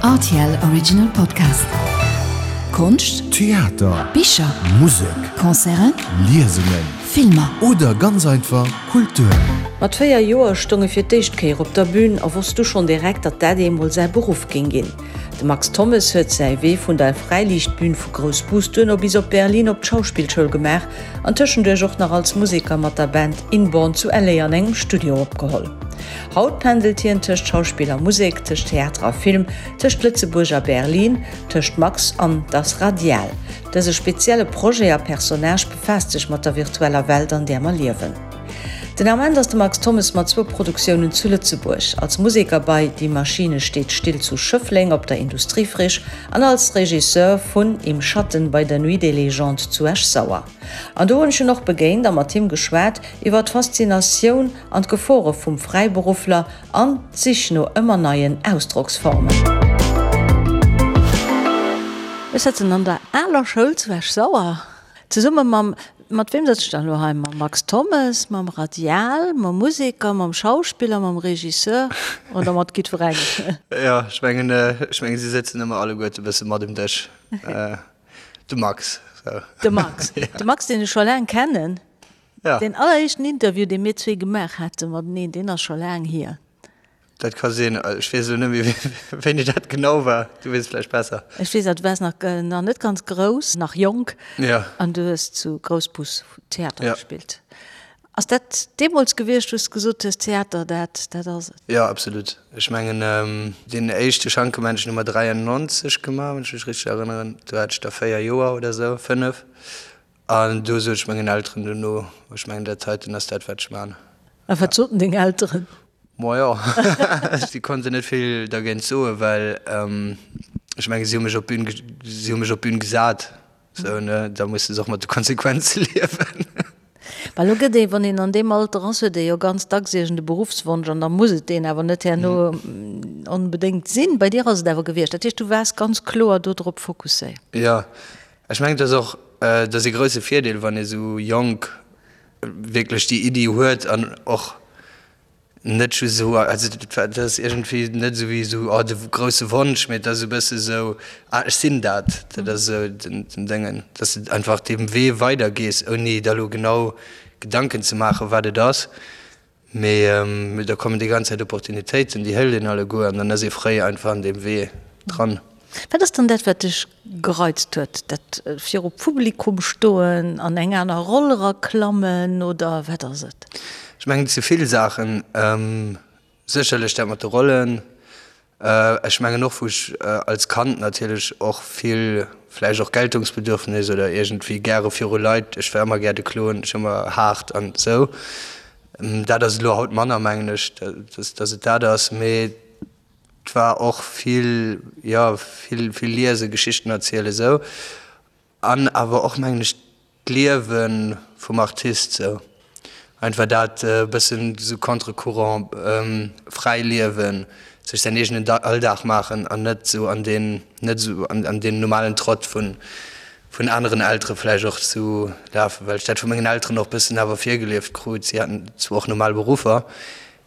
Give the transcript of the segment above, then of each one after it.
Rtl Original Podcast. Konscht, Theater, Bicher, Musek, Concerten, Liesungen, Filmer. Oder ganz einfach Kultur. Mat 4 Joer stoung e fir d'éischt Kéier op der Bün a wosst du schonn direkt, datt dat eemol säi Beruff géing ginn. De Max Thommes huet säi Wee vun der Fräiliichtbün vu Groussbus duerno bis op Berlin op d'Schauspillschoul gemaach an tëschenduerch och nach als Museker mat der Band Inborn zu LA an engem Studio opgeholl. Haut pendelt hien tëscht Schauspill a Musek, tëscht Theater a Film, tëscht Lëtzebuerg a Berlin, tëscht Max an Das Radial. Dëse spezielle Projet a Personnage befaasst sech mat der virtueller Welt, an där mer liewen. Den Ament ass de Max Thommes mat zwou Produktiounen zu Lëtzebuerg, als Museker bei Die Maschine steht still zu Schëffleng op der Industriefriche an als Regisseur vun Im Schatten bei der Nuit des Légendes zu Esch-Sauer. An do hunn ech en och begéint a mat him geschwat iwwer d'Faszinatioun an d'Gefore vum Fräiberuffler an d'Sich no ëmmer neien Ausdrocksformen. Ech sëtzen an der aler Schoul zu Esch-Sauer, zesumme mam, mat weem sëtz ech dann elo hei? Mam Max Thommes, mam Radial, mam Museker, mam Schauspiller, mam Regisseur oder mat jiddwerengem? Jo, ech mengen, ech mengen, si sëtzen ëmmer alleguerte e bësse mat um Dësch. De Max, sou. De Max, de Max, deen ech scho laang kennen. Ja. Deen alleréischten Interview, dee mir zwee gemaach hate mateneen, deen ass scho laang hier. Dat ka sinn. Ech weess elo net méi, wéini dat genau war. Du weess et vläicht besser. Ech weess, du waars nach, nach net ganz grouss, nach jonk. Ja. An du hues zu Groussbus Theater Ja. gespillt. Ass dat deemools gewiescht, wou s de gesot hues, Theater, dat, dat ass et? Jo, absolut. Ech mengen, deen éischte Schankemännchen hu mer 93 gemaach, wann ech mech richteg erënneren. Do hat ech da 4 Joer oder esou, 5. An do sot ech mengen Elteren dono, ech mengen dat heiten ass dat wat ech man. A wat soten deng Elteren? Majo, si konnten net vill dergéint soen, well ech menge si hu mech op d'Bün, si hu mech op d'Bün gesat, sou ne, da musse se och mat de Konsequenze liewen. Well elo gëtt ee, wann een an deem Alter ass, huet ee jo ganz dacks iergend e Beruffswonsch an da muss et deen awer net herno onbedéngt sinn. Bei dir ass et awer gewiescht. Dat heescht, du waars ganz kloer do drop fokusséiert. Jo, Ech mengen, et ass och, et ass ee grousse Virdeel, wann ee sou jonk wierklech déi Iddi huet an och net just esou, also dat ass iergendwéi net esou wéi esou, oh de grousse Wonsch, mee et ass esou e bësse esou, ah ech sinn dat. Dat ass esou den Déngen, dass de einfach deem Wee weidergees, ouni der elo genau Gedanken ze maachen, wat et ass. Mee da kommen déi ganz Zäit Opportunitéiten, déi hëlt een alleguer an dann ass ee fréi einfach an deem Wee dran. Wat ass dann dat, wat dech gereizt huet? Dat viru Publikum stoen, an eng aner Roll eraklammen oder wat ass et? Ech mengen, et si vill Saachen. Sécherlech dat mat de Rollen. Ech mengen och, wou ech als Kand natierlech och vill vläicht och Geltungsbedürfnis oder iergendwéi gäre viru Leit, ech war ëmmer gär de Klon, ech ëmmer haart an esou. Dat ass elo haut manner, mengen ech, dass et dat ass. Mee et war och vill, jo, vill, vill liesen, Geschichten erzielen, esou. An awer och, mengen ech, d'Liewe vum Artist sou. Einfach dat e bëssen sou contre courant, fräi liewen, sech säin eegenen Alldag maachen an net sou an deen, net sou an deen normalen Trott vun vun aneren Eltere vläicht och zu lafen, well ech dat vu mengen Elteren och bëssen awer virgelieft krut. Si haten zwar och normal Beruffer,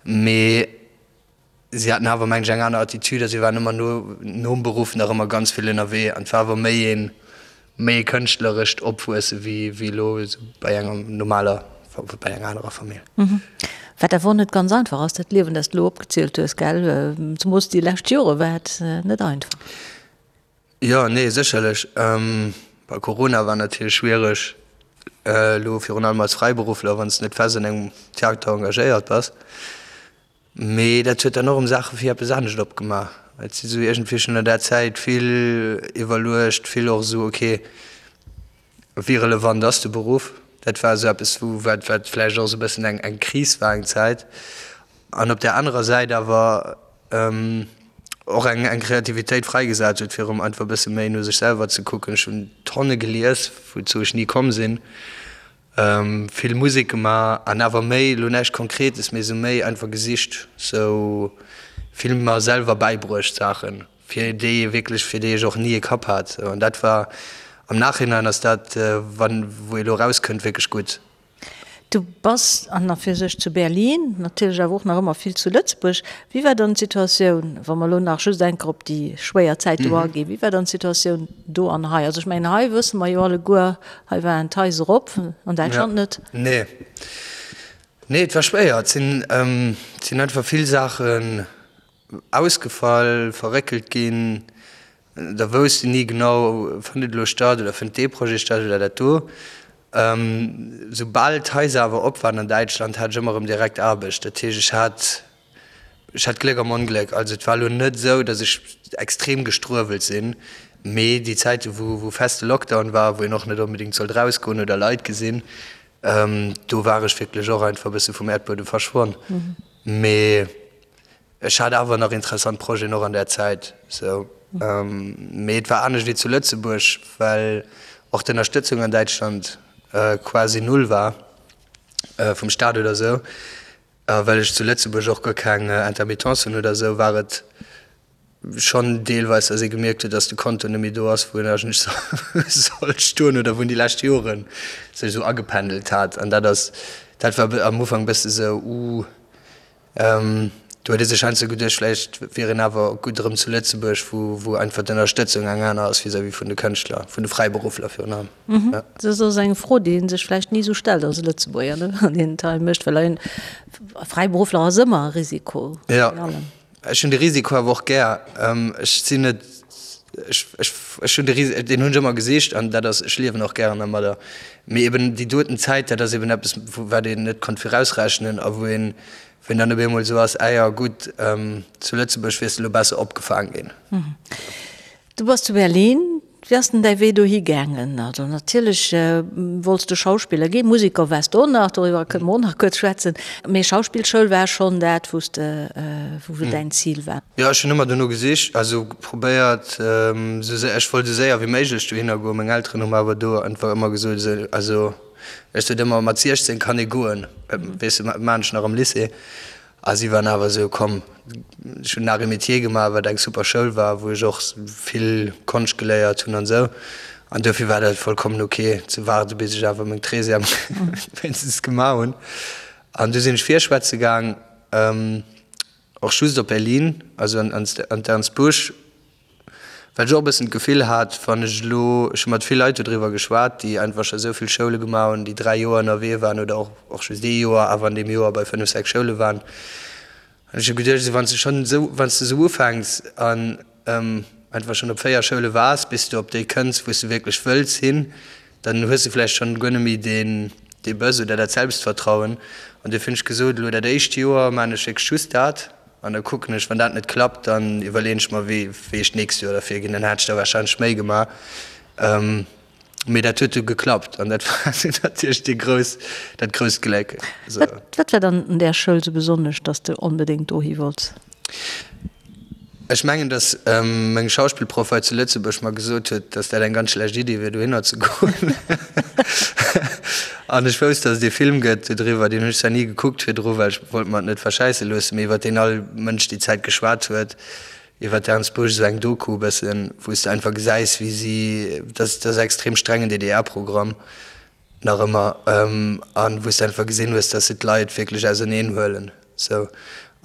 mee Si haten awer, mengen ech, eng aner Attitude a si waren ëmmer no, nom Beruff nach ëmmer ganz vill ënnerwee an et war awer méi een, méi e kënschtlerescht Opwuesse wéi, wéi elo esou bei enger normaler, bei enger anerer Famill. Wat awer och net ganz einfach ass, dat Liewen, dat s de elo opgezielt hues, gell? Zemoos déi lescht Jore war et net einfach. Jo, nee, sécherlech. Bei Corona war natierlech schwiereg, elo virun allem als Fräiberuffler, wann s de net fest an engem Theater engagéiert bass. Mee dat huet dann och erëm Saache fir eppes anescht opgemaach. Et si sou iergendwéi schonn an där Zäit vill iwwerluecht, vill och esou, ok, wéi relevant ass de Beruff? Dat war esou eppes, wou, wat, wat vläicht och esou e bëssen eng, eng Kris war eng Zäit. An op där anerer Säit awer och eng, eng Kreativitéit fräigesat huet, fir erëm einfach e bësse méi no sech selwer ze kucken. Ech hunn Tonne gelies, wouzou ech ni komm sinn. Vill Musek gemaach an awer méi, elo näischt Konkretes, mee esou méi einfach gesicht, sou vill mer selwer bäibruecht Saachen, fir déi ee wierklech, fir déi ech och ni e Kapp hat. An dat war, am Nachhinein ass dat, wann, wou ee elo erauskënnt, wierklech gutt. Du bass an a fir sech zu Berlin, natierlech awer och nach ëmmer vill zu Lëtzebuerg. Wéi war dann d'Situatioun, wa mer elo nach just eng Kéier op déi schwéier Zäit do aginn, wéi war dann d'Situatioun do an hei? Also ech mengen hei wësse mer jo alleguer, hei waren d'Haiser op, an Däitschland net. Nee, nee et war schwéier. Et sinn, et sinn einfach vill Saachen ausgefall, verréckelt ginn. Da wousst een ni genau, fënnt et elo statt oder fënnt dee Projet statt oder dat do. Soubal d'Haiser awer op waren an Däitschland, hat ech ëmmer erëm direkt Aarbecht. Dat heescht, ech hat, ech hat Gléck am Ongléck. Also et war elo net esou, datt ech extrem gestruewelt sinn, mee déi Zäite wou, wou feste Lockdown war, wou een och net onbedéngt sollt erausgoen oder Leit gesinn, do war ech wierklech och einfach e bësse vum Äerdbuedem verschwonn. Mee Ech hat awer nach interessant Projeten och an där Zäit, sou. Mee et war anescht wéi zu Lëtzebuerg, well och d'Ënnerstëtzung an Däitschland quasi null war, vum Staat oder sou. A well ech zu Lëtzebuerg och guer keng Intermittence hunn oder sou, war et schonn deelweis, datt ee gemierkt huet, datt de Konto net méi do ass, wou en eigentlech sollt stoen oder wou en déi lescht Jore sech esou agependelt hat. An dat ass, dat war am Ufank e bësse sou, uh. Do huet ee sech heiansdo geduecht, vläicht wier een awer gutt erëm zu Lëtzebuerg, wou wou einfach d'Ënnerstëtzung eng aner ass vis-à-vis vun de Kënschtler, vun de Fräiberuffler virun allem. Dat ass eng Fro, déi ee sech vläicht ni esou stellt als Lëtzebuerger, ne, wann een et hei mécht, well e Fräiberuffler ass ëmmer e Risiko. Jo, ech hunn de Risiko awer och gär. Ech sinn net, ech ech ech hunn de Ris, deen hunn ech ëmmer gesicht an dat ass, ech liewen och gären dermadder. Mee eben déi doten Zäit, dat ass eben eppes, wat een net konnt virausrechnen a wou een, wou een dann op eemol esou ass, Ah jo, gutt, zu Lëtzebuerg wiers de elo besser opgefaang ginn. Du bass zu Berlin. Wéi ass denn däi Wee dohi gaangen? Also natierlech wollts de Schauspiller ginn, Museker waars de och nach, doriwwer kënne mer och nach kuerz schwätzen, mee Schauspillschoul war schonn dat, wou s de, wou däin Zil war. Jo, ech hunn ëmmer dono gesicht, also probéiert, esou séier, ech wollt esou séier wéi méiglech dohinner goen. Meng Elteren hu mer awer do einfach ëmmer gesot, esou, also ech sot ëmmer, mat 16 kann ee goen, weess de, wat maan ech nach am Lycée? A si waren awer esou, komm, ech hunn Arts et Métiers gemaach, wat eng super Schoul war, wou ech och vill Konscht geléiert hunn an esou. An dofir war dat vollkommen ok ze waarde bis ech awer meng Treizième wéinstens gemaach hunn. An du sinn ech virschwätze gaang. Och just op Berlin, also an d'Ernst Busch, well ech och e bëssen d'Gefill hat, wann ech elo, ech hu mat vill Leit dodriwwer geschwat, déi einfach scho esou vill Schoule gemaach hunn, déi 3 Joer ënnerwee waren oder och och just ee Joer, awer an deem Joer bei 5, 6 Schoule waren. An ech hu geduecht, esou wann s de schonn esou, wann s de esou ufänks an einfach schonn op 4 Schoule waars, bis du op déi kënns, wou s de wierklech wëlls hin, dann hues de vläicht schonn guer net méi deen dee Bëss oder dat Selbstvertrauen. An duerfir hunn ech gesot, elo dat éischt Joer maachen ech wierklech just dat an da kucken ech, wann dat net klappt, dann iwwerleeën ech mer, wéi wéi ech d'nächst Joer derfir ginn. Dann hat ech der warscheinlech méi gemaach. Mee dat huet du geklappt an dat war natierlech dee grouss, dat grousst Gléck. Wat wat war dann un där Schoul sou besonnesch, dass de onbedéngt dohi wollts? Ech mengen, datt meng Schauspillproff hei zu Lëtzebuerg mer gesot huet, datt dat eng ganz schlecht Iddi wier, dohinner ze goen. An ech wousst, datt et ee Film gëtt dodriwwer, deen hunn ech zwar ni gekuckt virdru, well ech wollt mer et net verschäisse loossen, mee iwwer deen all Mënsch déi Zäit geschwat huet, iwwer d'Ernst Busch, esou eng Doku e bëssen, wou s de einfach gesäis, wéi si, dat ass extrem strengen DDR-Programm, Nach ëmmer. An wou s de einfach gesinn hues, dass se d'Leit wierklech auserneen huelen. Sou.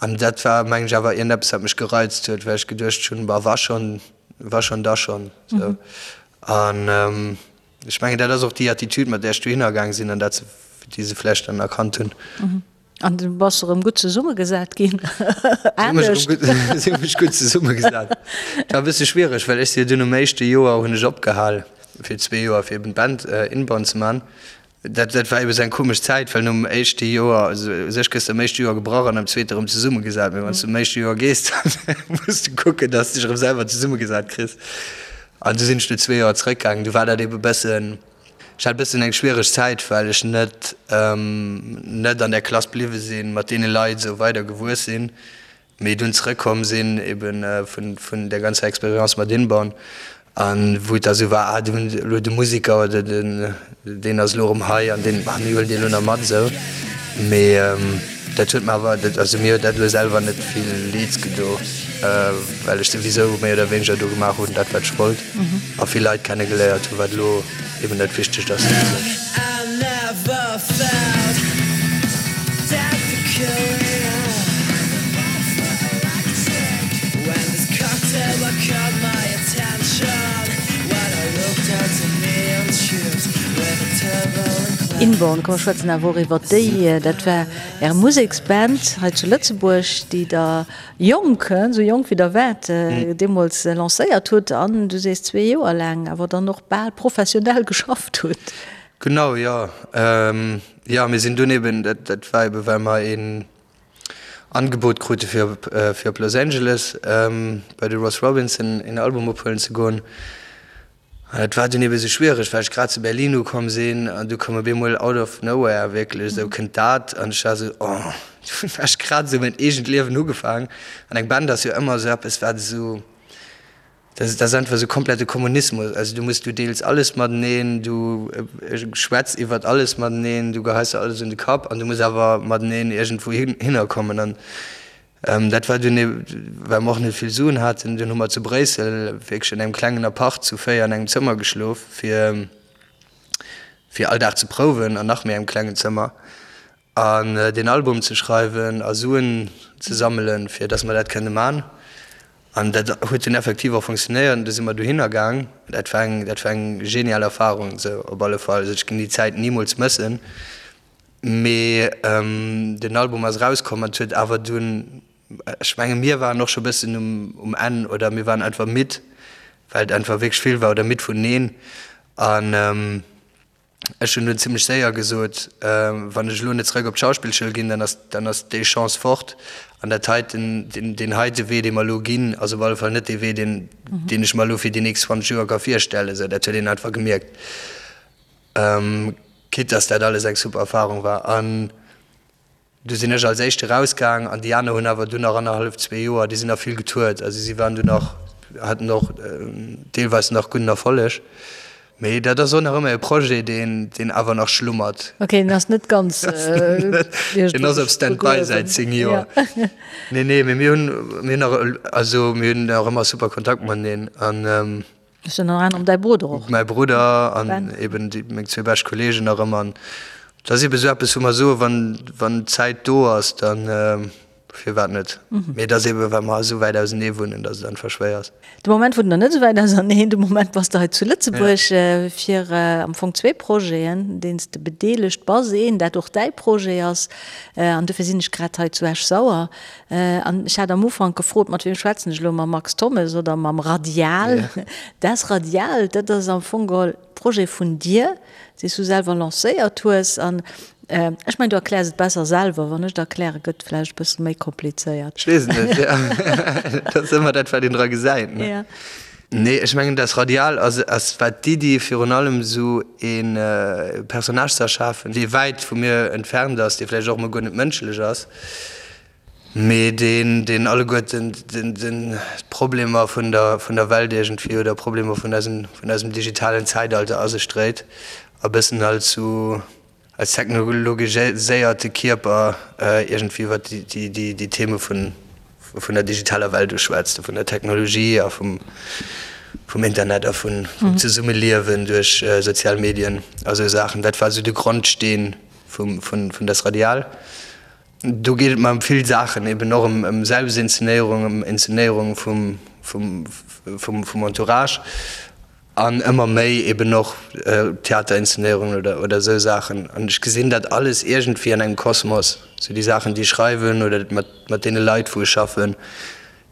An dat war, mengen ech, awer iergendeppes, wat mech gereizt huet, well ech geduecht hunn, Bah, wa schonn, wa schonn, da schonn. Sou. An ech mengen, dat ass och déi Attitude, mat där ech dohinner gaang sinn an dat se, déi se vläicht dann erkannt hunn. An du bass erëm gutt zesummegesat ginn. Anescht. Si hu mech gutt zesummegesat. Et war e bësse schwiereg, well ech si jo dunn um éischte Joer hunn ech opgehal fir zwee Joer fir eben d'Band Inbound ze man. Dat dat war eben esou eng komesch Zäit, well nom éischte Joer, also u sech gëss de am éischte Joer gebrach an am zweete erëm zesummegesat. Mee wann s du am éischte Joer gees, dann muss du kucken, datt s dech erëm selwer zesummegesat kriss. An du sinn ech no zwee Joer zrëckgaangen. Du war dat eben e bëssen. Ech hat e bëssen eng schwiereg Zäit, well ech net net an där Klass bliwwe sinn, mat deene Leit esou weider gewuess sinn, mee dunn zrëckkomm sinn ebe vun vun där ganzer Expérience mat Inborn an wou et da sou war, ah do hunn elo de Museker oder den deen ass elo erëm hei an deen, ah mir huelen deen elo nach mat esou. Mee dat huet mer awer, also mir huet dat elo selwer net vill Leeds gedo, well ech souwisou méi oder wéineger do gemaach hunn dat wat ech wollt a vill Leit kenne geléiert hunn, wat elo eben dat Wichtegt ass. Inborn, komm mer schwätzen awer och iwwer déi. Dat war Är Museksband hei zu Lëtzebuerg, déi Der jonk, esou jonk wéi Der waart, deemools lancéiert hutt an, du sees zwee Joer laang, awer dann och bal professionell geschafft hutt. Genau, jo. Jo, mir sinn dunn eben, dat war eben, well mer een Angebot krute fir op fir op Los Angeles bei de Ross Robinson een Album ophuelen ze goen. An dat war dunn ebe sou schwiereg, well ech grad zu Berlin ukomm sinn an du koum op eemol out of nowhere wierklech esou kënnt dat an ech war esou, oh, dunn war ech grad esou mäin eegent Liewen ugefaang an eng Band ass jo ëmmer esou eppes wat esou, dat ass einfach esou komplette Kommunismus, also du muss, du deels alles mateneen, du schwätz iwwert alles mateneen, du geheis der alles un de Kapp an du muss awer mateneen iergendwou hinner kommen an Dat war dunn, well mer och net vill Suen haten, dunn hu mer zu Bréissel wierklech an engem klengen Apart zu 4 an engem Zëmmer geschlof, fir fir all Dag ze prouwen an nach méi engem klengen Zëmmer an deen Album ze schreiwen a Suen ze sammelen, fir datt mer dat kënne man. An dat huet dunn effektiv och funktionéiert an du si mer dohinner gaang. Dat war eng, dat war eng genial Erfarung, esou op alle Fall. Also ech ginn déi Zäit nimools mëssen. Mee den Album ass erauskomm an et huet awer dunn, ech menge mir waren och scho bëssen um Enn oder mir waren einfach midd, well et einfach wierklech vill war oder midd vun neen. An ech hunn dunn zimmlech séier gesot, wann ech elo net zeréck op d'Schauspillschoul ginn, dann ass dann ass déi Chance fort. An dat heiten, deen heite Wee, dee mer elo ginn, ass op alle Fall net dee Wee, deen deen ech mer elo fir déi nächst 20 Joer ka virstellen. Esou, dat huet een einfach gemierkt. Quitte dass dat alles eng super Erfahrung war. An du sinn ech als Éischte rausgaang an déi aner hunn awer dunn nach annerhallef, zwee Joer, déi sinn nach vill getourt. Also si waren dunn nach, haten och deelweis nach gudden Erfolleg. Mee dat ass och nach ëmmer e Projet, deen, deen awer nach schlummert. Ok, deen ass net ganz Deen ass op Stand-by säit 10 Joer. Nee, nee, mee mir hunn, mir hunn nach, also mir hunn nach ëmmer super Kontakt mateneen an. Ass ënner anerem däi Brudder och. Mäi Brudder an eben déi meng zwee bescht Kolleegen nach ëmmer. An dat ass eben esou eppes, wou mer soen, wann, wann d'Zäit do ass, dann firwat net. Mee et ass eben, well mer esou wäit ausenee wunnen, datt et einfach schwéier ass. De Moment wunnt der net esou wäit auserneen. De Moment bass de hei zu Lëtzebuerg fir am Fong zwee Projeten, deenen s de bedeelegt bass. Een, dat och däi Projet ass, an dofir sinn ech grad hei zu Esch-Sauer. An ech hat am Ufank gefrot, mat wiem schwätzen ech elo, mam Max Thommes oder mam Radial? Das Radial, dat ass am Fong geholl Projet vun dir, dee s du selwer lancéiert hues. An ech mengen, du erkläers et besser selwer. Wann ech et erklären, gëtt et vläicht e bësse méi komplizéiert. Ech weess et net, jo. Dat ass ëmmer dat, wat een dra gesäit, ne? Ja. Nee, ech mengen, das Radial ass, ass war d'Iddi virun allem esou ee Personnage ze erschafen, dee wäit vu mir entfernt ass, dee vläicht och emol guer net mënschlech ass, mee deen, deen alleguerten den, den, d'Problemer vun der, vun der Welt iergendwéi oder Problemer vun eisem, vun eisem digitalen Zäitalter a sech dréit a bëssen als sou als technologiséierte Kierper iergendwéi iwwer déi, déi, déi Theme vun, vun der digitaler Welt uschwätzt, vun der Technologie a vum, vum Internet a vun, vum Zesummeliewen duerch sozial Medien a sou Saachen. Dat war sou de Grondsteen vum, vun, vun Das Radial. Do geet et mer ëm vill Saachen, eben och ëm Selbstinszenéierung, ëm Inszenéierung vum, vum, vum, vum Entourage an ëmmer méi eben och Theaterinszenéierungen oder, oder esou Saachen. An ech gesinn dat alles iergendwéi an engem Kosmos, sou déi Saachen, déi ech schreiwen oder mat, mat deene Leit, wou ech schaffen.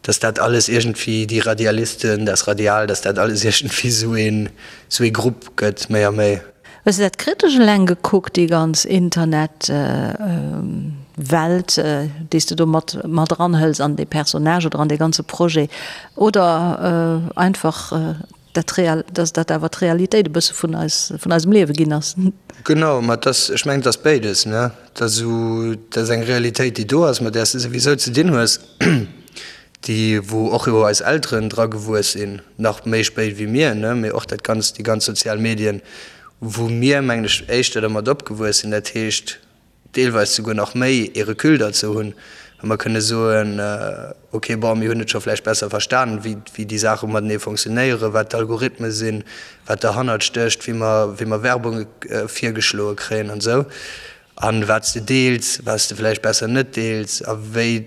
Dass dat alles iergendwéi, déi Radialisten, das Radial, dass dat alles iergendwéi esou een, esou ee Grupp gëtt, méi a méi. Hues de dat kritesch eleng gekuckt, déi ganz Internet Welt, déi s de do mat mat eranhëls an dee Personnage oder an dee ganze Projet, oder einfach dat real, dass dat awer d'Realitéit e bësse vun eis, vun eisem Liewe ginn ass. Genau, ma et ass, ech mengen, et ass béides, ne? Et ass esou, et ass eng Realitéit, déi do ass, mat där s de souwisou ze dinn hues, déi, wou och jo eis Elteren dra gewuess sinn, nach méi spéit wéi mir, ne? Mee och dat Ganzt, déi ganz sozial Medien, wou mir, mengen ech, éischter dermat opgewuess sinn, dat heescht, deelweis souguer nach méi ee Recul derzou hunn, wa mer kënne soen, ok, bon, mir hunn et scho vläicht besser verstanen, wéi, wéi déi Saache matenee fonctionnéieren, wat d'Algorithme sinn, wat derhannert stécht, wéi mer, wéi mer Werbung virgeschloe kréien an esou, a wat s de deels, wat s de vläicht besser net deels a wéi,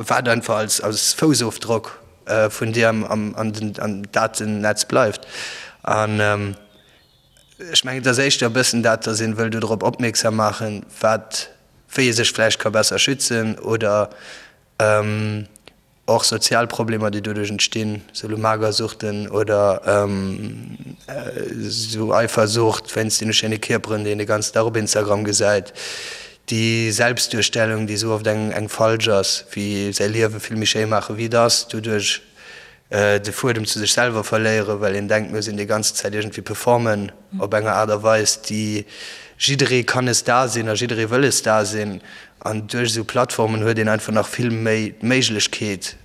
wat einfach als, als Foussofdrock vun dir am, am, an den, am Datennetz bleift. An. Ech mengen, et ass éischter e bëssen dat, datt een wëll dodrop opmierksam maachen, wat, wéi ee sech vläicht ka besser schützen oder och sozial Problemer, déi doduerch entstinn, sou elo Magersuchten oder sou Eifersucht wéinst deene schéine Kierperen, déi een de ganzen Dag op Instagram gesäit, déi Selbstduerstellung, déi sou oft eng eng falsch ass, wéi säi Liewe vill méi schéi maache wéi et ass, doduerch de Fuedem zu sech selwer verléieren, well een denkt, mir sinn déi ganze Zäit iergendwéi performen op enger Aart a Weis, déi jidderee kann e Star sinn a jidderee wëll e Star sinn. An duerch esou Plattformen huet een einfach nach vill méi d'Méiglechkeet,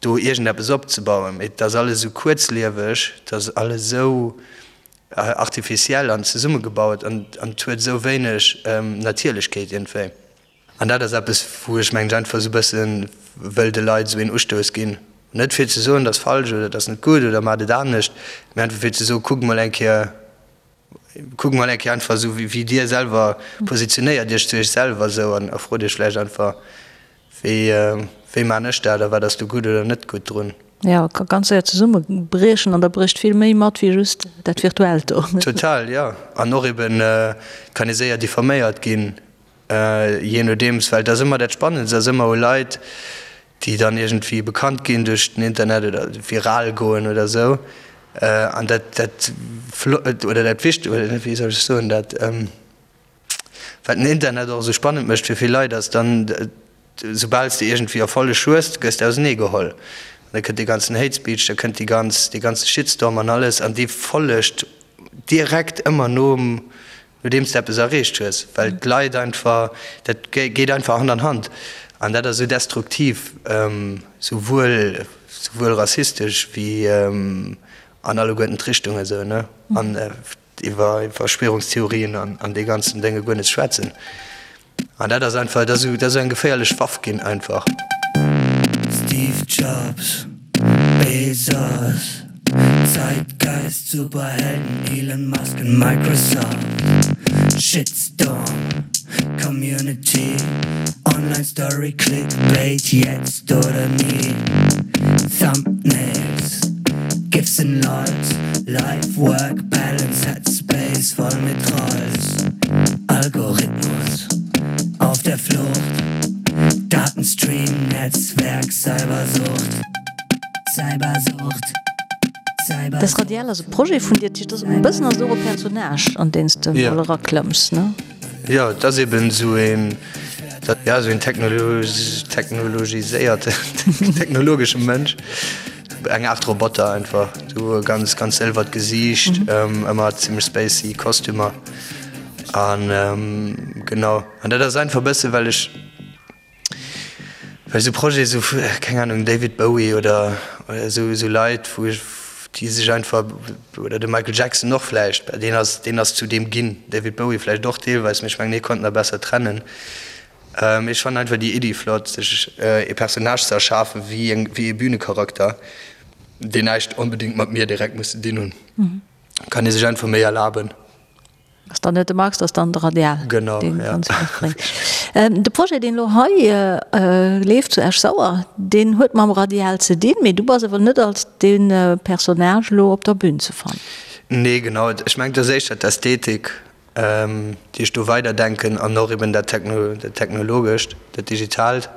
do iergendeppes opzebauen. Mee et ass alles esou kuerzlieweg, et ass alles esou artificiell an zesummegebaut an et huet esou wéineg Natierlechkeet iergendwéi. An dat ass eppes, wou ech mengen ech einfach esou e bësse wëll de Leit esou een Ustouss ginn. Net fir ze soen, dat ass falsch oder dat ass net gutt oder maacht et anescht, mee einfach fir ze soen, kuckt mol eng Kéier, kuckt mol eng Kéier einfach esou wéi Dir selwer positionéiert Iech zu Iech selwer esou an a frot Iech vläicht einfach, wéi, wéi maan ech dat a wat ass do gutt oder net gutt drun. Jo, ka ganz séier zesummebriechen an da brécht vill méi mat wéi just dat Virtuellt do. Total, jo. An och eben, et kann ee séier diffaméiert ginn. Jee nodeems, well et ass ëmmer dat Spannendst ass ëmmer u Leit, déi dann iergendwéi bekannt ginn duerch den Internet oder viral goen oder esou. An dat, dat Flott oder dat Wicht oder wéi soll ech soen, dat wat den Internet och esou spannend mécht fir vill Leit, ass dann, soubal s de iergendwéi Erfolleg hues, gëss de auseneegeholl. An da kënnt dee ganzen Hate Speech, da kënnt déi ganz, dee ganze Shitstorm an alles an dee follegt direkt ëmmer nom Nodeems de eppes erreecht hues, well d'Leit einfach, dat geet einfach Hand an Hand an dat ass esou destruktiv, souwuel souwuel rassistesch wéi an alleguerten d'Richtungen esou, ne, an iwwer Verschwörungstheorien an dee ganzen Dénge guer net ze schwätzen. An dat ass einfach, dat ass esou eng geféierlech Waff ginn einfach. Steve Jobs, Bezos, Zeitgeist, Superhelden, Elon Musk und Microsoft, Shitstorm, Community, Online Story, Clickbait, jetzt oder nie, Thumbnails, GIFs and LOLs, Life, Work, Balance, Headspace, voll mit Trolls, Algorithmus, auf der Flucht, Datenstream, Netzwerk, Cybersucht, Cybersucht, Cybersucht. Das Radial ass e Projet vun dir, dat ass e bëssen ass et och e Personnage, an deen s de mol eraklëmms, ne? Jo, et ass eben esou een, ja, esou een technologiséierten, technologesche Mënsch, eng Aart Roboter einfach, esou e ganz, ganz sëlwert Gesiicht, ëmmer zimmlech spacey Kostümer an genau. An dat ass einfach e bësse well ech, Well esou Projete sou vu, keng Ahnung, David Bowie oder esou, esou Leit, wou ech, déi sech einfach, oder de Michael Jackson och vläicht, bah deen ass, deen ass zu deem ginn, David Bowie vläicht och deelweis, mee ech mengen, hie konnt nach besser trennen. Mee ech fannen einfach déi Iddi flott, sech ee Personnage ze erschafen, wéi eng, wéi ee Bünecharakter, deen näischt onbedéngt mat mir direkt muss ze dinn hunn. Kann ee sech einfach méi erlaben. Ass dann net de Max, ass dann de Radial, genau, deen ja. ganz vill bréngt. De Projet, deen elo hei leeft zu Esch-Sauer, deen huet mam Radial ze dinn, mee du bass awer net als dee Personnage elo op der Bühn ze fannen. Nee, genau. Ech mengen, et ass éischter d'Ästhetik, déi ech do weiderdenken an och eben dat Technologescht, dat Digitaalt.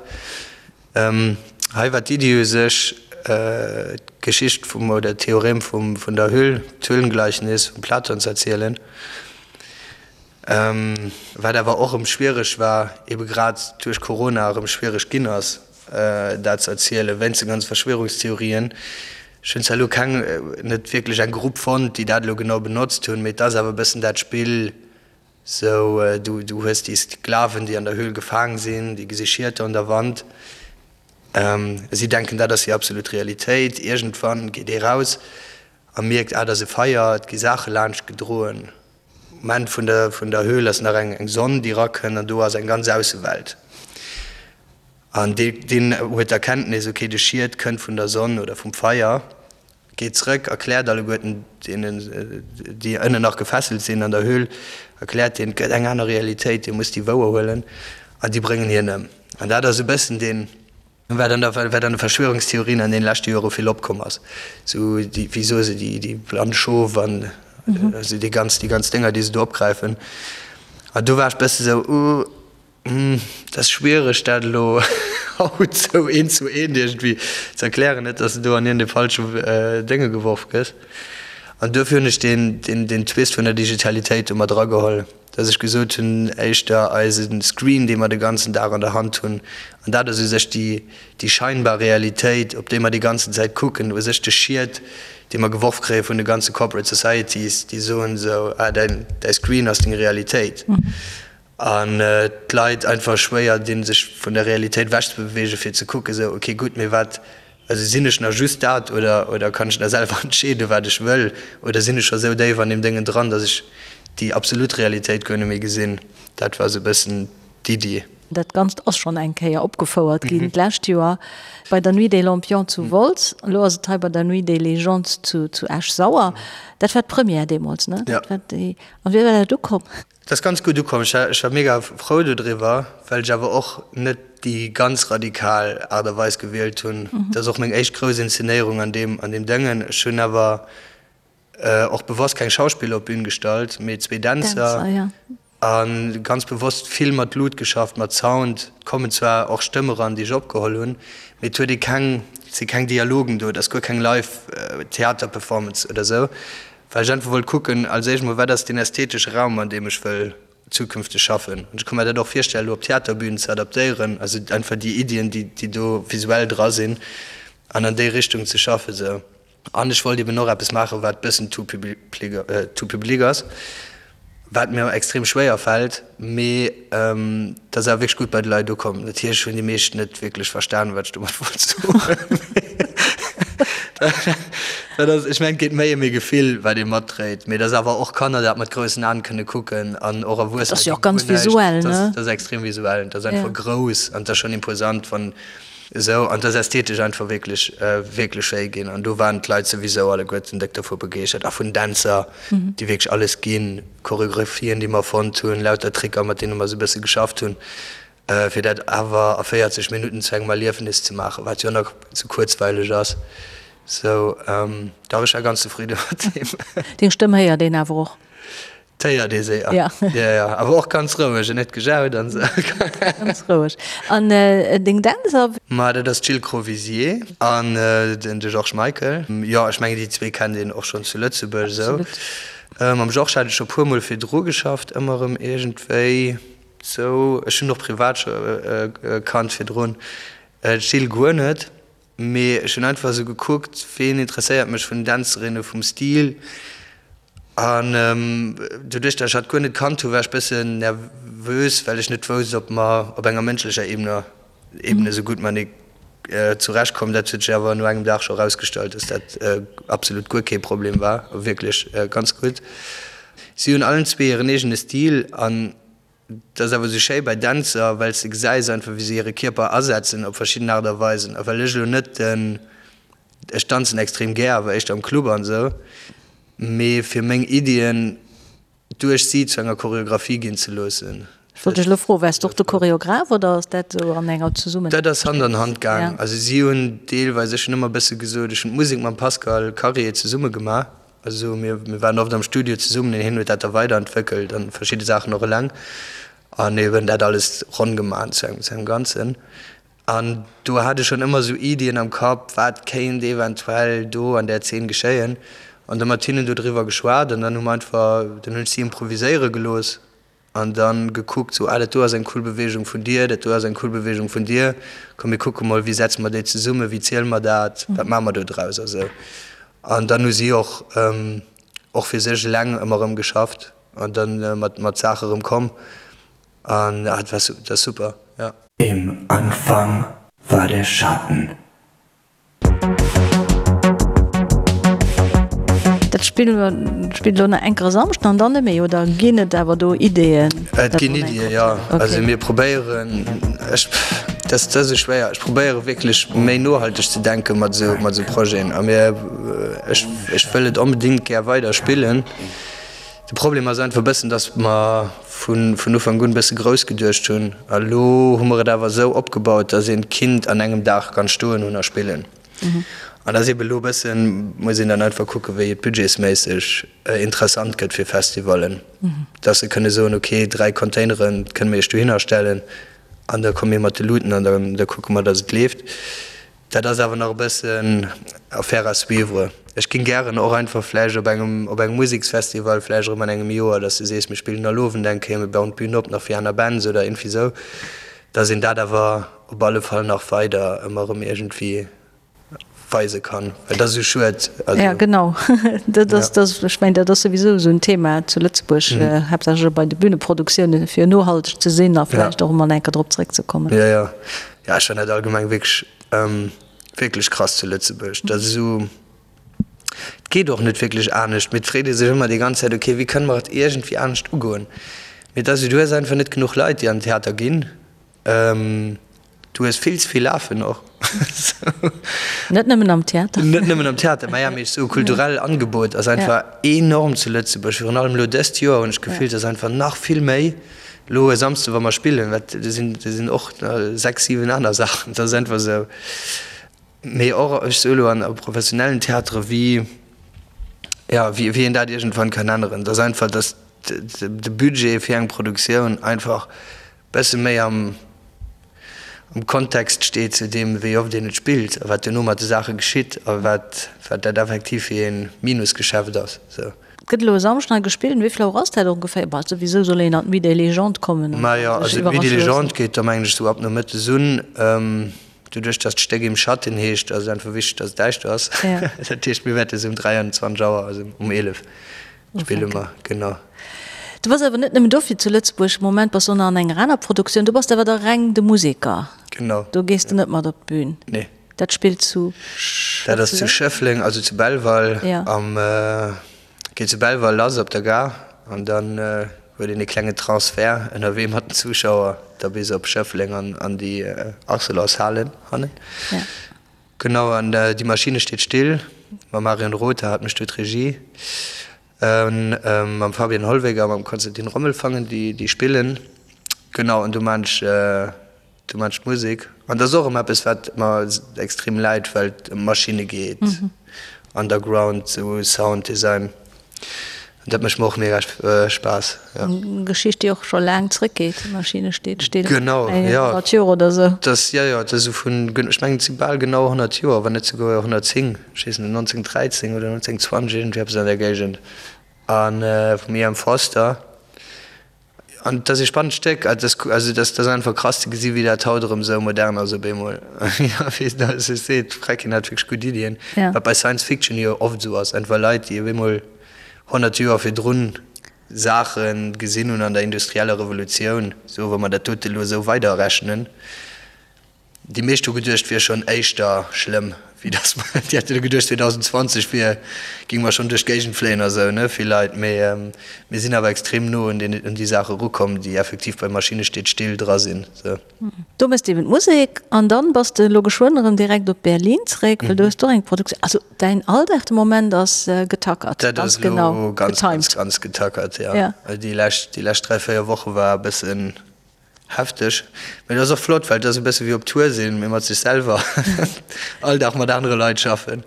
Hei war d'Iddi u sech, d'Geschicht vum, oder d'Theorem vum, vun der Hüll, d'Höhlengleichnis vum Platon ze erzielen, wat awer och erëm schwiereg war, ebe grad duerch Corona erëm schwiereg ginn ass, dat ze erzielen, wéinst de ganze Verschwörungstheorien. Ech hunn zwar elo keng, net wierklech eng Grupp fonnt, déi dat elo genau benotzt hunn, mee et ass awer e bëssen dat Spill, Sou, du, du hues déi Sklaven, déi an der Höhl gefaang sinn, déi gesi Schieter un der Wand. Si denken, dat ass déi absolut Realitéit. Iergendwann geet ee raus a mierkt, ah, dat ass e Feier, et gi Saache laanscht gedroen. Um Enn vun der, vun der Höhl ass nach eng, eng Sonn, déi erakënnt an do ass eng ganz Aussewelt. An dee, deen huet d'Erkenntnis, okay, de Schiet kënnt vun der Sonn oder vum Feier. Geet zrëck, erkläert alleguerten deenen, déi ënnen nach gefesselt sinn an der Höhl, erkläert deenen, et gëtt eng aner Realitéit, dir musst déi wouerhuelen, an déi bréngen hien ëm. An dat ass e bëssen deen, wat an der, wat an de Verschwörungstheorien an deene leschte Jore vill opkomm ass, sou déi, wéi soe se, déi, déi blann Schof an. Also déi ganz, déi ganz Dénger, déi se do opgräifen. An do war ech bësse sou, uh, dat ass schwiereg, dat elo haut sou eent zu eent iergendwéi ze erklären, net dass de do an iergendee falsche Dénge geworf gëss. An duerfir hunn ech deen, deen, deen Twist vun der Digitalitéit do mat erageholl, dass ech gesot hunn, éischter eise Screen, dee mer de ganzen Dag an der Hand hunn, an dat ass u sech déi, déi scheinbar Realitéit, op déi mer déi ganzen Zäit kucken, u sech de Schiet, dee mer geworf kréie vun de ganze Corporate Societies, déi soen esou, ah, däin, däi Screen ass deng Realitéit. An d'Leit einfach schwéier dinn, sech vun der Realitéit ewechzebewegen, fir ze kucken, esou, okay, gutt, mee wat, also sinn ech nach just dat oder, oder kann ech nach selwer entscheeden, wat ech wëll, oder sinn ech scho esou déif an deem Déngen dran, datt ech déi absolut Realitéit guer net méi gesinn. Dat war esou e bëssen d'Iddi. Dat Ganzt ass schonn eng Kéier opgefouert ginn d'lescht Joer bei der Nuit des Lampions zu Wolz. Elo ass et hei bei der Nuit des Légendes zu Esch-Sauer. Dat war d'Première deemools, ne? Jo. An wéi war dat ukomm? Dat ass ganz gutt ukomm. Ech war mega frou dodriwwer, well ech awer och net déi ganz radikal Aart a Weis gewielt hunn. Dat ass och meng éischt grouss Inszenéierung an deem an deem Dëngen. Ech hunn awer och bewosst keng Schauspiller op d'Bün gestallt, mee zwee Dänzer a ganz bewosst vill mat Lut geschafft, mat Sound. Et kommen zwar och Stëmme ran, déi ech opgeholl hunn, mee et huet ee keng, et si keng Dialogen do, et ass guer keng Live-Theater-Performance oder esou. Well ech einfach wollt kucken, als éischt mol, wat ass deen ästhetesche Raum, an deem ech wëll zukünfteg schaffen. An ech ka mer dat och virstellen, elo op Theaterbünen ze adaptéieren, also einfach déi Iddien, déi, déi do visuell dra sinn, an an déi Richtung ze schaffen esou. An ech wollt eben och eppes maachen, wat bëssen tout tout public ass, wat mir extrem schwéier fält, mee dat ass awer wierklech gutt bei de Leit ukomm. Natierlech hunn déi meescht net wierklech verstanen, wat ech domat wollt soen. Dat ass, ech mengen, et geet méi ëm ee Gefill, wat ee matdréit, mee dass awer och Kanner dat mat groussen Aen kënne kucken an och Erwuessener. Dat ass jo och ganz visuell, ne? Dat ass extrem visuell, dat ass einfach grouss an dat ass schonn imposant, wann esou, an dat ass ästhetesch einfach wierklech, wierklech schéi ginn. An do waren d'Leit souwisou alleguerten déck dovu begeeschtert a vun Dänzer, déi wierklech alles ginn, Choreographien, déi mer fonnt hunn, lauter Tricker, mat deene mer esou e bësse geschafft hunn. Fir dat awer a 40 Minutten zu engem Erliefnis ze maachen, wat jo nach ze kuerzweileg ass. Sou, dach, ech war ganz zefridde mat deem. Deng Stëmm héiert een awer och. D'héiert ee séier. Ja. Ja, ja, awer och ganz roueg, net gejaut an esou. Ganz roueg. An deng Dänzer? Ma dat ass d'Jill Crovisier an den de Georges Michael. Jo, ech mengen déi zwee kennt een och schonn zu Lëtzebuerg esou. Absolut. Mam Georges hat ech scho puermol virdru geschafft, ëmmer erëm iergendwéi. Sou, ech hunn och privat scho kannt virdrun, d'Jill guer net, mee ech hunn einfach esou gekuckt, ween interesséiert mech vun den Dänzerinne vum Stil an doduerch dat ech hatt guer net kannt hu war ech bëssen nervös, well ech net wousst ob mer op enger mënschlecher Ebene Ebene esou gutt matenee zurecht kommen. Dat huet sech awer no engem Dag scho erausgestallt, dass dat absolut guer kee Problem war, wierklech ganz gutt. Si hunn allen zwee hiren eegene Stil an Dat ass awer esou schéi bei Dänzer, well s de gesäis einfach, wéi se hire Kierper asetzen op verschidden Aart a Weisen. A well ech elo net den, ech danzen extrem gär, awer éischter am Club an esou, mee fir meng Iddien duerch si zu enger Choreographie ginn ze loossen. Ech wollt dech elo froen, Waars de och de Choreograph oder ass dat esou an enger Zesummen? Dat ass Hand an Hand gaang. Also si hunn deelweis, ech hunn ëmmer e bësse gesot, ech hunn d'Musek mam Pascal Karier zesumme gemaach. Also mir waren oft am Studio zesummen an hien huet dat da weiderentwéckelt an verschidde Saachen och eleng an eben dat alles ronn gemaach zu engem zu engem Ganzen. An do hat ech schonn ëmmer esou Iddien am Kapp, wat kéint eventuell do an där Zeen geschéien an da mat hinnen do driwwer geschwat an dann hu mer einfach, dann hunn ech si improviséiere gelooss An dann gekuckt, sou, ah, dat do ass eng cool Bewegung vun dir, dat do ass eng cool Bewegung vun dir, komm mir kucke mol, wéi setze mer déi zesummen, wéi ziele mer dat, wat maache mer do draus a sou. An dann hu si och, och fir sech eleng ëmmer erëm geschafft an dann mat, mat Saache erëm komm an ah, dat war, dat ass super, ja. Im Anfang war der Schatten. Dat Spill spillt elo nach enker e Samschden an dann net méi, oder ginn et awer do Ideeën? Et ginn Iddien, jo. Also mir probéieren, ech, dat ass esou schwéier, ech probéiere wierklech méi nohalteg ze denke mat esou, mat esou Projeten. A mir, ech, ech wëll et onbedéngt gär weider spillen. De Problem ass einfach e bëssen, datt mer vun, vun Ufank un e bësse grouss geduecht hunn. A lo hu mer et awer esou opgebaut, datt een d'Kind an engem Dag kann stoen hunn a spillen. An da ass eebe elo e bëssen, muss een dann einfach kucken, wéi et budgetsméisseg interessant gëtt fir Festivallen, dass se kënne soen, okay, 3 Containere kënne mir iech dohinner stellen an da komme mir mat de Luuten an da kucke mer, dass et leeft. Dat ass awer nach e bëssen Affaire à suivre. Ech géing gären och einfach vläicht op engem, op engem Museksfestival vläicht erëm an engem Joer, dass du sees, mir spillen all Owend eng Kéier, mir bauen d'Bün op nach fir aner Bands oder iergendwéi esou, dass een dat awer op alle Fall nach weider ëmmer erëm iergendwéi weise kann, well dat ass esou schued. Also, ja, genau. Dat ass, dat ass, ech mengen, dat ass souwisou esou en Thema zu Lëtzebuerg, haaptsächlech och bei de Büneproduktioune fir nohalteg ze sinn a vläicht och emol eng Kéier drop zeréckzekommen. Jo, jo. Jo, ech fannen dat allgemeng wierklech, wierklech krass zu Lëtzebuerg, dat esou, et geet och net wierklech anescht, mee et freet ee sech ëmmer déi ganz Zäit, ok, wéi kënne mer et iergendwéi anescht ugoen? Mee et ass esou, du hues einfach net genuch Leit, déi an den Theater ginn, du hues vill ze vill Afen och. Net nëmmen am Theater. Net nëmmen am Theater, mä ja, mee esou kulturell Angebot ass einfach enorm zu Lëtzebuerg, virun allem elo dëst Joer hunn ech d'Gefill, et ass einfach nach vill méi. Elo e Samsde wa mer spillen, wat do sinn, do sinn och 6, 7 aner Saachen, dat ass einfach esou. Mee och, ech soe elo an a professionellen Theatere wéi, jo, wéi wéi een dat iergendwann kann änneren, dass einfach, dass de Budget fir eng Produktioun einfach bësse méi am am Kontext steet zu deem, wéi oft een et spillt a wat duerno mat de Saache geschitt a wat wat dat effektiv fir ee Minusgeschäft ass. Sou. Et gëtt elo e Samschden hei gespillt. Um wéi vill Auer ass dat ongeféier? Bah, souwisou soll een an d'Nuit des Légendes kommen an Majo, sech also d'Nuit des iwwerrasche loossen. Légendes geet da mengen ech sou ab nomëttes un. Doduerch dass d'Stéck Im Schatten heescht, ass et einfach wichteg, dass et däischter ass. Ja. Dat heescht, mir wäerte sou um 23 Auer, also um 11 spille mer, genau. Du bass awer net nëmmen dofir zu Lëtzebuerg. Am Moment bass du och nach an enger aner Produktioun. Do bass de awer da reng de Museker. Genau. Do gees de net mat op d'Bün. Nee. Dat spillt zu Dat ass zu Schëffleng, also zu Belval. Ja. Am, geet zu Belval lass op der Gare an dann huet een e klenge Transfert ënnerwee mat den Zuschauer da bis op Schëffleng an an déi Arcelorshalen hannen. Ja. Genau, an Die Maschine steht still mam Marion Rother hat mécht do d'Regie. Mam Fabian Hollweg a mam Konstantin Rommelfangen, déi déi spillen. Genau, an do maan ech, do maan ech d'Musek. An dat ass och erëm eppes, wat mer extrem läit, well et ëm Maschinne geet, Underground, sou Sound Design. An dat mécht mer och mega Spaass, jo. Eng Geschicht, déi och scho laang zréckgeet, Die Maschine steht still. Genau, jo. 100 Joer oder sou. Dat, jo, jo, dat ass esou vun, ech mengen, et si bal genau 100 Joer, wann net souguer 110. Ech weess net, 1913 oder 1920, iergendwéi eppes an där Géigend, a vum E. M. Forster. An et ass ee spannend Stéck. Et ass, also et ass, et ass einfach krass ze gesi wéi dat haut erëm esou modern ass op eemol. Jo, wéi s de sech seet, d'Fräckin hat wierklech gutt Iddien, wat bei Science Fiction jo oft esou ass, einfach Leit, déi op eemol 100 Joer virdrun Saache gesinn hunn an der industrieller Revolutioun, sou wa mer dat dote elo esou weiderrechnen, Déi meescht hu geduecht, wier schonn éischter schlëmm, wéi dass mer, déi hätte geduecht 2020 wier, géinge mer schonn duerch d'Géigend fléien a sou, ne, vill Leit. Mee mir sinn awer extrem no un deen, un déi Saache erukomm, déi effektiv bei Maschine steet still dra sinn, sou. Do méchs de eben d'Musek an dann bass de elo geschwënn erëm direkt op Berlin zréck, well do hues de och eng Produktioun. Also däin Alldag de Moment ass getackert, Dat ganz ass elo genau ganz, ganz, getimed. ganz getackert, jo. Ja. Déi lescht, déi lescht 3, 4 Woche war e bëssen Hefteg, mee et ass och flott, well et ass e bësse wéi op Tour sinn, mee mat sech selwer, all Dag mat anere Leit schaffen,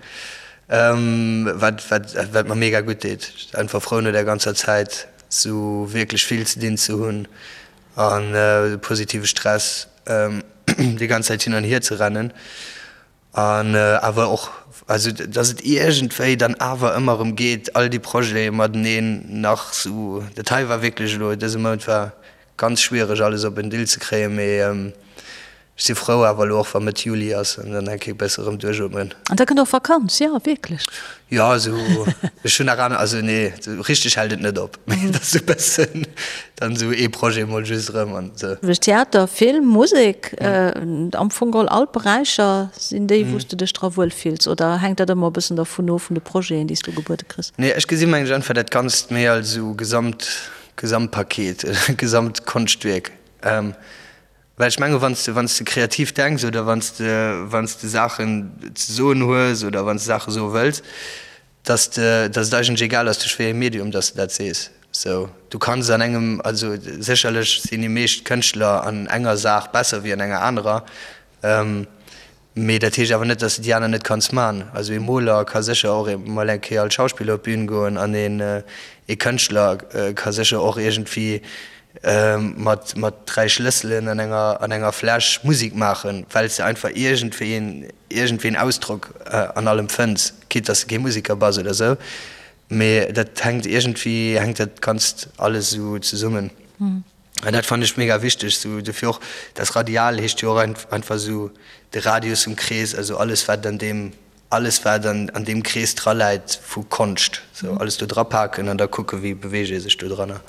wat wat wat mer mega gutt deet. Einfach frou no där ganzer Zäit sou wierklech vill ze dinn ze hunn an positive Stress déi ganz Zäit hin an hier ze rennen. An awer och, also datt et iergendwéi dann awer ëmmer erëm geet, all déi Projete mateneen nach sou. Dat hei war wierklech elo, dëse Mount war ganz schwiereg alles op en Dill ze kréien, mee ech si frou awer elo och wa Mëtt Juli ass an dann eng Kéier bësse erëm duerchootmen. An da kënnt och Vakanz, jo wierklech. Jo, also ech hunn nach aner, also nee, sou richteg hält et net op, mee et ass sou e bëssen dann sou ee Projet mol just erëm an sou. Theater, Film, Musek, am Fong geholl all d'Beräicher sinn déi, wou s de dech dra wuel fills, oder hänkt dat ëmmer e bëssen dervun of, vun de Projeten, déi s du gebuede kriss? Nee, ech gesi mengen ech einfach dat Ganzt méi als esou Gesamt, Gesamtpaket, Gesamtkonschtwierk. Well ech menge wann s de, wann s de kreativ denks oder wann s de, wann s de Saachen ze soen hues oder wann s de Saache soe wëlls, dass de, dass et eigentlech egal ass duerch wéi ee Medium dass de dat sees. Sou, du kanns an engem, also sécherlech sinn déi meescht Kënschtler an enger Saach besser wéi an enger anerer. Mee dat heescht awer net, dass de déi aner net kanns man. Also ee Moler ka sécher och emol eng Kéier als Schauspiller op d'Bün goen an een ee Kënschtler ka sécher och iergendwéi mat mat 3 Schlësselen an enger an enger Fläsch Musek maachen, well s de einfach iergendwéi een iergendwéi een Ausdrock an allem fënns, quitte dass de kee Museker bass oder sou. Mee dat hänkt iergendwéi hänkt dat Ganzt alles esou zesummen. An dat fannen ech mega wichteg, sou dofir och das Radial heescht jo och einfach sou de Radius vum Krees, also alles wat an deem, alles wat an an deem Krees dra läit vu Konscht, sou alles do dra paken an da kucke wéi beweegt ee sech do dranner.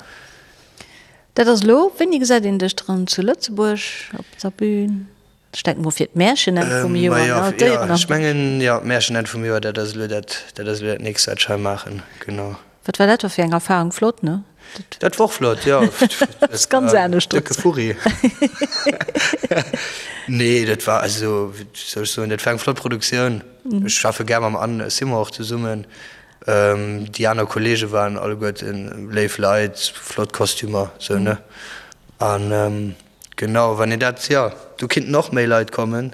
Dat ass elo, wéini gesäit een dech dran zu Lëtzebuerg op der Bühn? Ech denken mol fir d'Märchen-Enn vum Joer, ne? D'Déieren am. Ech mengen, jo, d'Märchen-Enn vum Joer, dat ass elo dat, dat ass elo dat nächst, wat ech hei maachen, genau. Wat war dat da fir eng Erfahrung? Flott, ne? Dat war och flott, jo. Dat ass ganz anescht. Décke Furri. Nee, dat war, also, wéi soll ech soen, dat war eng flott Produktioun. Ech schaffe gär mam Anne Simon och zesummen. Déi aner Kollege waren alleguerten léif Leit, flott Kostümer, sou, ne? An. Genau, wann een dat, jo, do kinnten och méi Leit kommen,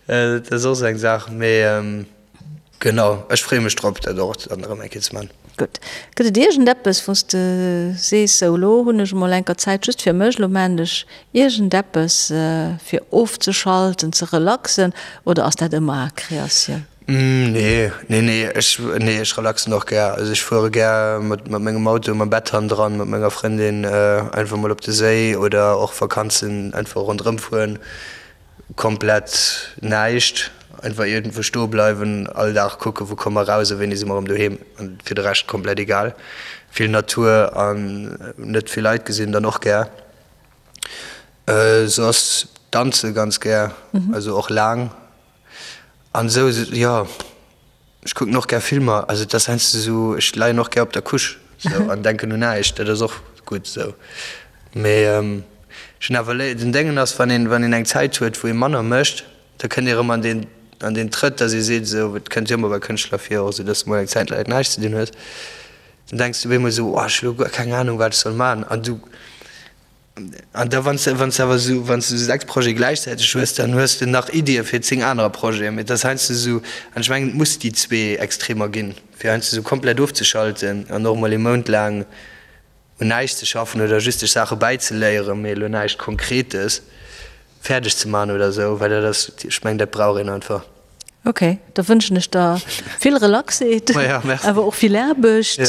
dat ass och esou eng Saach, mee genau, ech freeë mech drop, dat och dann erëm eng Kéier ze man. Gutt. Gëtt et iergendeppes, wou s de sees, sou elo hunn ech emol enker Zäit just fir mech, elo maan ech iergendeppes fir ofzeschalten, ze relaxen, oder ass dat ëmmer Kreatioun? Nee, nee, nee, ech, nee, ech relaxen och gär. Also ech fuere gär mat, mat mengem Auto, mam Bett hannendran, mat menger Frëndin einfach mol op de Séi oder och Vakanzen einfach ronderëm fueren. Komplett näischt, einfach iergendwou stoe bleiwen, all Dag kucken, wou komme mer raus a wéini si mer erëm doheem. An fir de Rescht komplett egal. Vill Natur an net vill Leit gesinn dann och gär. Soss danze ganz gär, also och laang. An esou, jo, ech kucken och gär Filmer, also et ass heiansdo esou, ech leien och gär op der Couche esou an denken un näischt, dat ass och gutt esou. Mee ech hunn awer léi, den Déngen ass, wann een, wann een eng Zäit huet, wou ee manner mécht, da kënnt ee erëm an deen, an deen Trëtt, dass ee seet esou, et kënnt jo ëmmer bei Kënschtler vir och esou, dass de mol eng Zäit laang näischt ze dinn hues, dann denks du op eemol esou, oh ech hu lo guer keng Anung wat ech soll man an du, An da wann s de, wann s de awer esou, wann s de esou 6 Projete gläichzäiteg hues, dann hues de nach Iddie fir 10 anerer Projeten. Mee et ass heiansdo esou, an ech mengen, et muss déi zwee Extremer ginn, fir heiansdo esou komplett ofzeschalten an och emol ee Mount laang un näischt ze schaffen oder just sech Saache bäizeléieren, mee elo näischt Konkretes fäerdeg ze maachen oder esou, well dat ass, ech mengen, dat brauch een einfach. Ok, da wënschen ech der vill Relaxeet, awer och vill Aarbecht,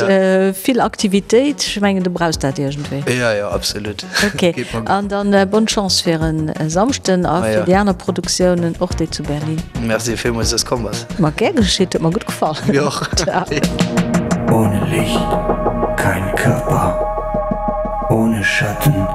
vill Aktivitéit. Ech mengen, du brauchs dat iergendwéi. Jo, jo, absolut. Ok, an dann bonne Chance fir e Samschden a fir déi aner Produktiounen, och déi zu Berlin. Merci villmools, dass komm bass. Ma gär geschitt, huet mer gutt gefall. Mir och. Ciao. Ohne Licht kein Körper, ohne Schatten.